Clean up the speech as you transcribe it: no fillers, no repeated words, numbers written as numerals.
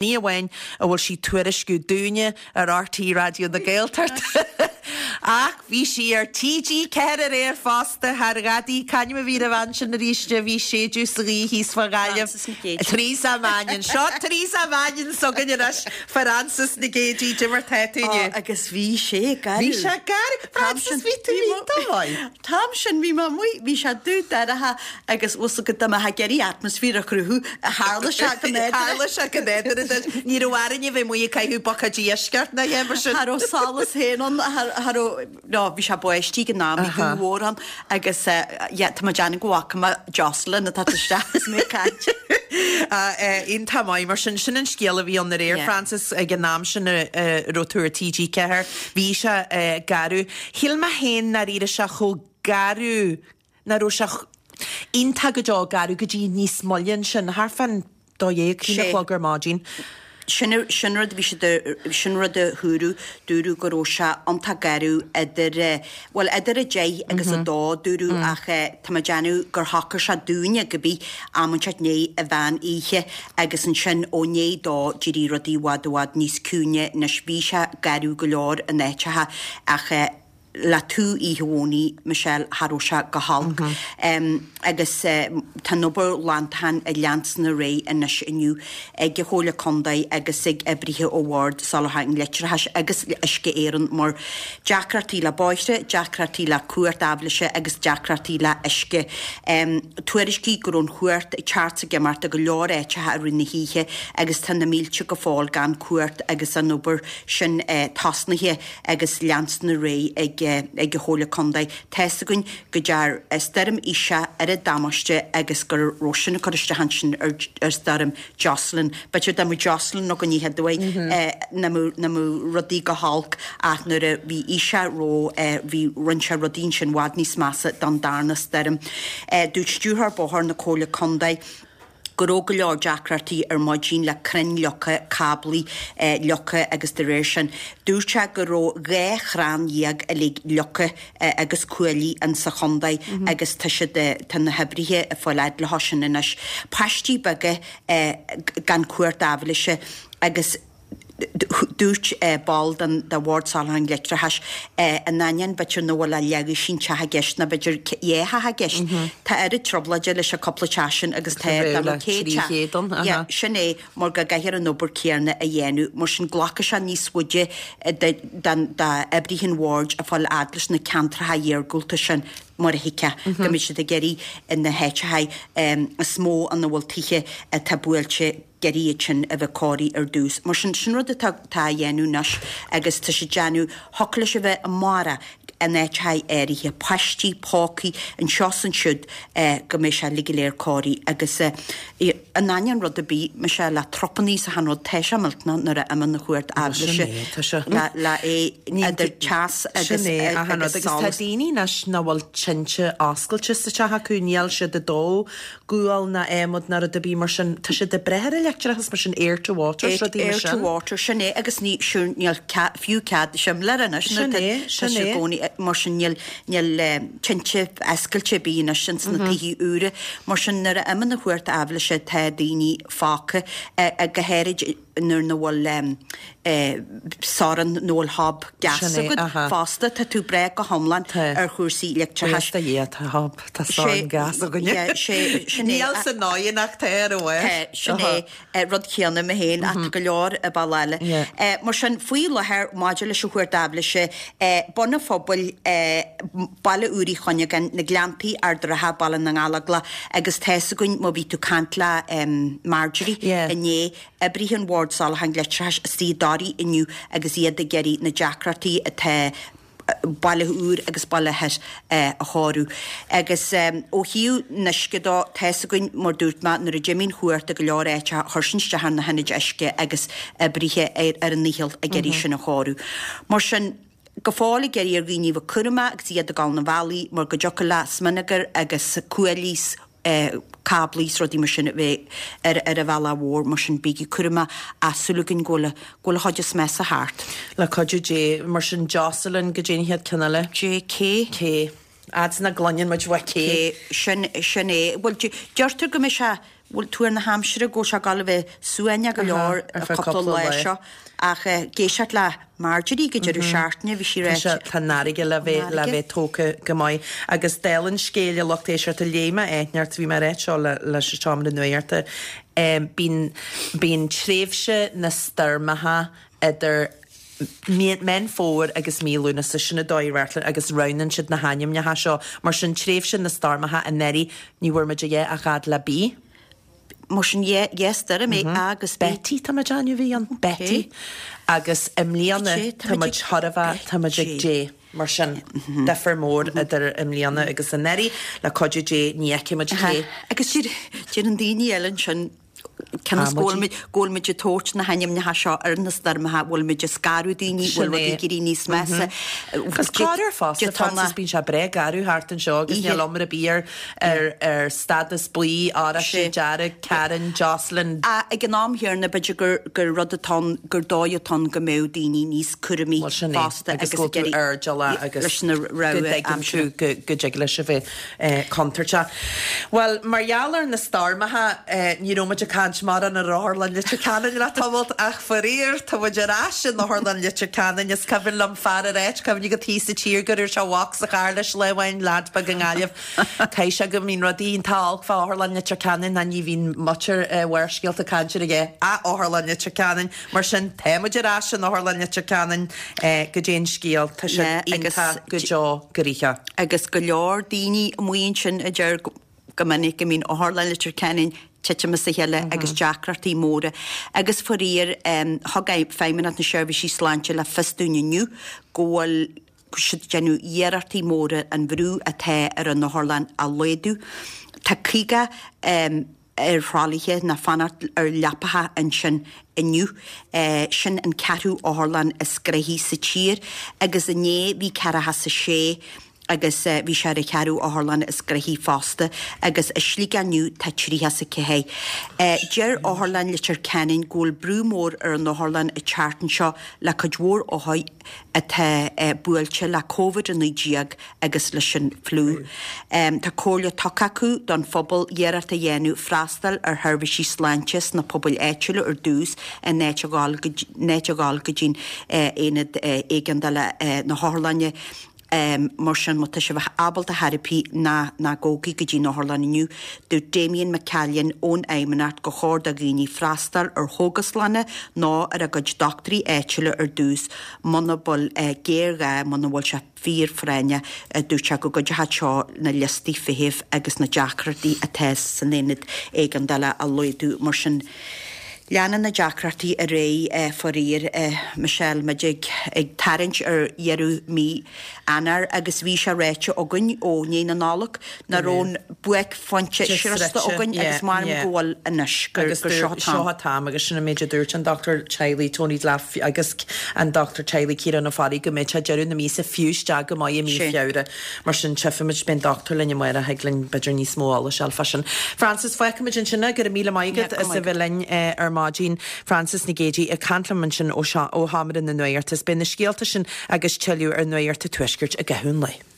Ní amháin a bhfuil sí tuairisciú dúinne ar RTÉ Raidió na Gaeltachta ach bhí sí ar TG4 aréir fosta, thar ghadaí, c'ainm a bhí ar an bhean sin arís a bhí séideadh sa ghaoth thíos fá Ghaillimh? Frances Nic Géadaigh. Teresa Mannion. Seo Teresa Mannion s'againn anois, Frances Nic Géadaigh, cad é mar tá tú inniu? Ó, agus bhí sé garbh. Bhí sé garbh. Frances, bhí tú iontach maith. T-am sin bhí mé amuigh, bhí sé dubh dorcha agus bhfuil 's agat dá mbeifeá ag iarraidh atmaisféar a chruthú, tharla sé go nádúrtha. Tharla sé go nádúrtha duit. Ní raibh orainn a bheith amuigh ag caitheamh buicéidí uisce ort ná a dhath mar sin. Cha raibh solas féin ann, cha raibh, no, bhí sé báistí ag an am, bhí gaoth mhór ann agus yeah, tá mé ag déanamh go bhfaca mé Jocelyn atá isteach is mé ag caint. Iontach maith mar sin. Sin an scéal a bhí ann aréir, Frances, ag an am sin a raibh tú ar TG4. Bhí sé garbh. Shíl mé féin nach raibh sé chomh garbh, nach raibh sé iontach go deo garbh go dtí níos moille ansin, thart fán dó dhéag, haon a chlog ar maidin. Sin, sin rud a bhí siad a, sin rud a dúradh, dúradh go raibh sé iontach garbh idir, bhuel idir a deich agus a dó dúradh ach tá mé ag déanamh gur shocair sé dúinne go bí am inteacht i ndiaidh an mheán oíche agus ansin ó ndiaidh dó d'éirigh rudaí i bhfad i bhfad níos ciúine anois bhí sé garbh go leor in áiteacha ach le tú oíche Dhomhnaigh, Michelle, cha raibh sé go holc. Agus tá an obair ghlantacháin ag leanstan ar aghaidh anois inniu ag an Chomhairle Contae agus ag oibrithe ó Bhord Soláthair an Leictreachais agus Uisce Éireann mar deacrachtaí le bóithre, deacrachtaí le cumhacht aibhléise agus deacrachtaí le uisce. Tuairiscíodh go raibh an chumhacht ag teacht 's ag imeacht i go leor áiteacha i rith na hoíche agus tá na mílte go fóill gan cumhacht agus an obair sin tosnaithe agus leanstan ar aghaidh ag ag an Chomhairle Contae. Tá's againn go dtear Stoirm Isha oiread damáiste agus go raibh sin ag cur isteach ansin ar ar Stoirm Jocelyn. B'fhéidir dá mbeadh Jocelyn againn oíche Domhnaigh nach mbeadh nach mbeadh rudaí go holc ach nuair a bhí Isha ró bhí rinne sé rudaí ansin i bhfad níos measa don darna stoirm. Dúirt Stiúrthóir Bóthair na Comhairle Contae go raibh go leor deacrachtaí ar maidin le crainn leagtha, cáblaí leagtha agus de réir sin dúirt sé go raibh 12 chrann uilig leagtha agus cuaillí in sa chontae agus tá siad, tá na hoibrithe ag fáil fhad leo sin anois. Paistí beaga gan cumhacht aibhléise agus dúirt ball den de Bhord Soláthair an Leictreachais in ainneoin b'fhéidir nach bhfuil ach leathdhosaen teach i gceist nó b'fhéidir dhá theach i gceist, tá oiread trioblóide leis an cúpla teach sin agus tá dá mbeadh 100 teach. Yeah, sin é mar go gcaithfear an obair céanna a dhéanamh. Mar sin glacfaidh sé níos faide d'oibrithe an bhoird a fáil fhad leis na ceantracha iargúlta sin mar a thuigfeá, go mbeidh siad ag iarraidh na háiteacha is mó ina bhfuil tithe atá buailte ag iarraidh iad sin a bheith cóirithe ar dtús. Mar sin, sin rud atá á dhéanamh anois agus tá siad déanamh, thiocfadh leis a bheith amárach in áiteacha áirithe, paistí, pócaí, anseo is ansiúd go mbeidh sé uilig go léir cóirithe agus in ainneoin rud ar bith, Michelle, le trupannaí is achan rud, tá sé millteanach nuair a imíonn an chumhacht aibhléise le é idir teas agus Sin é, achan rud. Agus tá daoine anois nach bhfuil tinte oscailte sa teach acu, níl siad ag dó gual ná adhmad ná rud ar bith mar sin. Tá siad ag brath ar an leictreachas mar sin, air to water, is rudaí mar sin. Air to water, sin é agus ní, sure, níl cead, fiú cead simléar anois Sin é, sin é. gcónaí, mar sin níl, níl tinte oscailte ar bith anois ins na tithe úra. Mar sin nuair a imíonn an chumhacht aibhléise tá daoine fágtha, go háirid nuair nach bhfuil sorn nó bhfuil hob gas agat fosta, tá tú ag brath go hiomlán ar chúrsaí leictreachais. Buíochas do Dhia, tá hob, tá sorn gas againne. Níl sa ndóigh ach tá ar an bhféar. Tá, sin é, rud céanna mé féin ach tá go leor i ball eile. Mar sin, faoi láthair, maidir leis an chumhacht aibhléise, Bun an Phobail, Baile Úr Uí Chuinneagáin, na Gleanntaí, Ard an Rátha, Baile na nGallóglach agus tá's againn má bhí tú ag caint le Marjorie inné, Oibrithe an Bhoird Soláthair Leictreachais istigh i dToraigh inniu agus iad ag iarraidh na deacrachtaí atá Baile Úr agus Baile Thoir a chóiriú. Agus ó thaobh an uisce dó, tá's againn, mar dúirt mé, nuair a d'imigh an chumhacht i go leor áiteacha, chuir sin isteach ar na hionaid uisce agus oibrithe ar a ndícheall ag iarraidh sin a chóiriú. Mar sin, go fóill ag iarraidh ar dhaoine a bheith cúramach agus iad ag dul na bhealaí mar go dtiocfadh le smionagar agus cuaillí 's cáblaí 's rudaí mar sin a bheith ar ar an bhealach mhór mar sin bígí cúramach ach súil againn go bhfuil go bhfuil an chuid is measa thart. Le cuidiú Dé. Mar sin Jocelyn goidé an chéad ceann eile. J K. K. Fhad 's nach gcluineann muid uaidh K. K. Sin sin é. Bhuel deirtear go mbeidh sé. bhfuil tuar na haimsire go bhfuil sé ag dul a bheith suaimhneach go leor ar feadh cúpla lá seo ach ag éisteacht le Marjorie ag an deireadh seachtaine bhí sí Tá sé, tá an fharraige le bheith, le bheith tógtha go maith. Agus dála an scéil a lucht éisteachta, léigh mé áit inteacht, bhí mé ag ráit seo le, leis an seomra nuachta, bíonn, bíonn tréimhse na stoirmeacha idir mí, Meán Fómhair agus mí Lúnasa, sin an dóigh a reáchtálann agus roghnaíonn siad na hainmneacha seo. Mar sin, tréimhse na stoirmeacha anuraidh, ní bhfuair muid a dhath ach fhad le B. Mar sin, yeah, stoirm é A agus B. Betty, tá muid ann, a bhí ann, Betty. Agus i mbliana, tá muid chóir a bheith, tá muid ag J. Mar sin, difear mór idir i mbliana agus anuraidh, le cuidiú Dé, ní fheicfidh muid K. Agus deireann daoine eile ansin, cionn is go bhfuil muid, go bhfuil muid ag tabhairt na hainmneacha seo ar na stoirmeacha, bhfuil muid ag scanrú daoine, bhfuil rudaí ag éirí níos measa. Agus corruair fosta, Frances, bíonn sé breá garbh thart anseo agus níl iomrá ar bith ar ar stádas buí, oráiste, dearg, Karen, Jocelyn. Ag an am chéanna, b'fhéidir gur gur rud atá ann, gur dóigh atá ann go mbeadh daoine níos cúramaí Bhuel, sin é. fosta Agus go agus bhfuil tú airdeallach agus leis na go rogha dtuigeann aimsire. tú go go dtig leis a bheith contúirteach. Bhuel, mar gheall ar na stoirmeacha, ní raibh muid ag caint mórán ar Otharlann Leitir Ceanainn le tamalt ach faraor, tá muid ar ais in Otharlann Leitir Ceanainn. Is cuimhin liom fear ag ráit, cuimhnigh agat thíos sa tír go raibh sé a mhac sa charr leis lá amháin, leaid beag i nGaillimh. Caithfidh sé go mbíonn rudaí iontach olc fá Otharlann Leitir Ceanainn ná ní bhíonn muintir Bharrscéalta ag caint ar a dhath ach Otharlann Leitir Ceanainn. Mar sin, tá muid ar ais in Otharlann Leitir Ceanainn. Goidé an scéal? Tá siad iontach go deo gnoitheach. Agus go leor daoine amuigh ansin a deir go minic go mbíonn Otharlann Leitir Ceanainn titim as a chéile agus deacrachtaí móra. Agus faraor, thug Feidhmeannacht na Seirbhísí Sláinte le fios dúinn inniu go bhfuil siad ag déanamh iarrachtaí móra an bhrú atá ar an otharlann a laghdú. Tá 50 ar thralaithe ná fanacht ar leapacha ansin inniu. Sin an ceathrú otharlann is gnoithí sa tír agus inné bhí ceathracha is a sé agus bhí sé ar an cheathrú otharlann is gnoithí fosta agus i Sligeach inniu tá 34. Deir Otharlann Leitir Ceanainn go bhfuil brú mór ar an otharlann an tseachtain seo le cuid mhór othair atá buailte le Covid-19 agus leis an fliú. Tá comhairle tugtha acu don phobal iarracht a dhéanamh freastal ar sheirbhísí sláinte sna pobail áitiúla ar dtús in áit a dhul go dtí'n aonad éigeandála na hotharlainne. Mar sin, má tá sibh ábalta ar chor ar bith, ná ná gabhaigí go dtí an otharlann inniu. Dúirt Damien McCallion ón Fheidhmeannacht gur chóir do dhaoine freastal ar chógaslanna nó ar a gcuid dochtúirí áitiúla ar dtús muna bhfuil géarghá, muna bhfuil sé fíorphráinneach. Dúirt sé go gcuideoidh seo na liostaí feithimh agus na deacrachtaí atá san aonad éigeandála a laghdú. Mar sin, leanann na deacrachtaí ar aghaidh faraor. Michelle, muid ag tarraingt ar dheireadh mí Eanáir agus bhí sé ráite againn ó ndiaidh na Nollag nach raibh an buaicphointe sroiste againn agus maram go bhfuil anois, gur seo an t-am. Seo an t-am agus sin an méid a dúirt an dochtúir teaghlaigh Tony Delap agus an dochtúir teaghlaigh Ciarán Ó Fearraigh go mbeidh sé deireadh na míosa fiú isteach go maith i mí Feabhra. Mar sin tchífimid, beidh an dochtúir linn amárach, thig linn b'fhéidir níos mó eolais a fháil fá sin. Frances, fágfaimid ansin é, go raibh míle maith agat as a bheith linn ar maidin. Frances Nic Géadaigh ag caint liom ansin ó Sheomra na Nuachta. Beidh na scéalta sin agus tuilleadh ar Nuacht an Tuaiscirt i gcaitheamh an lae.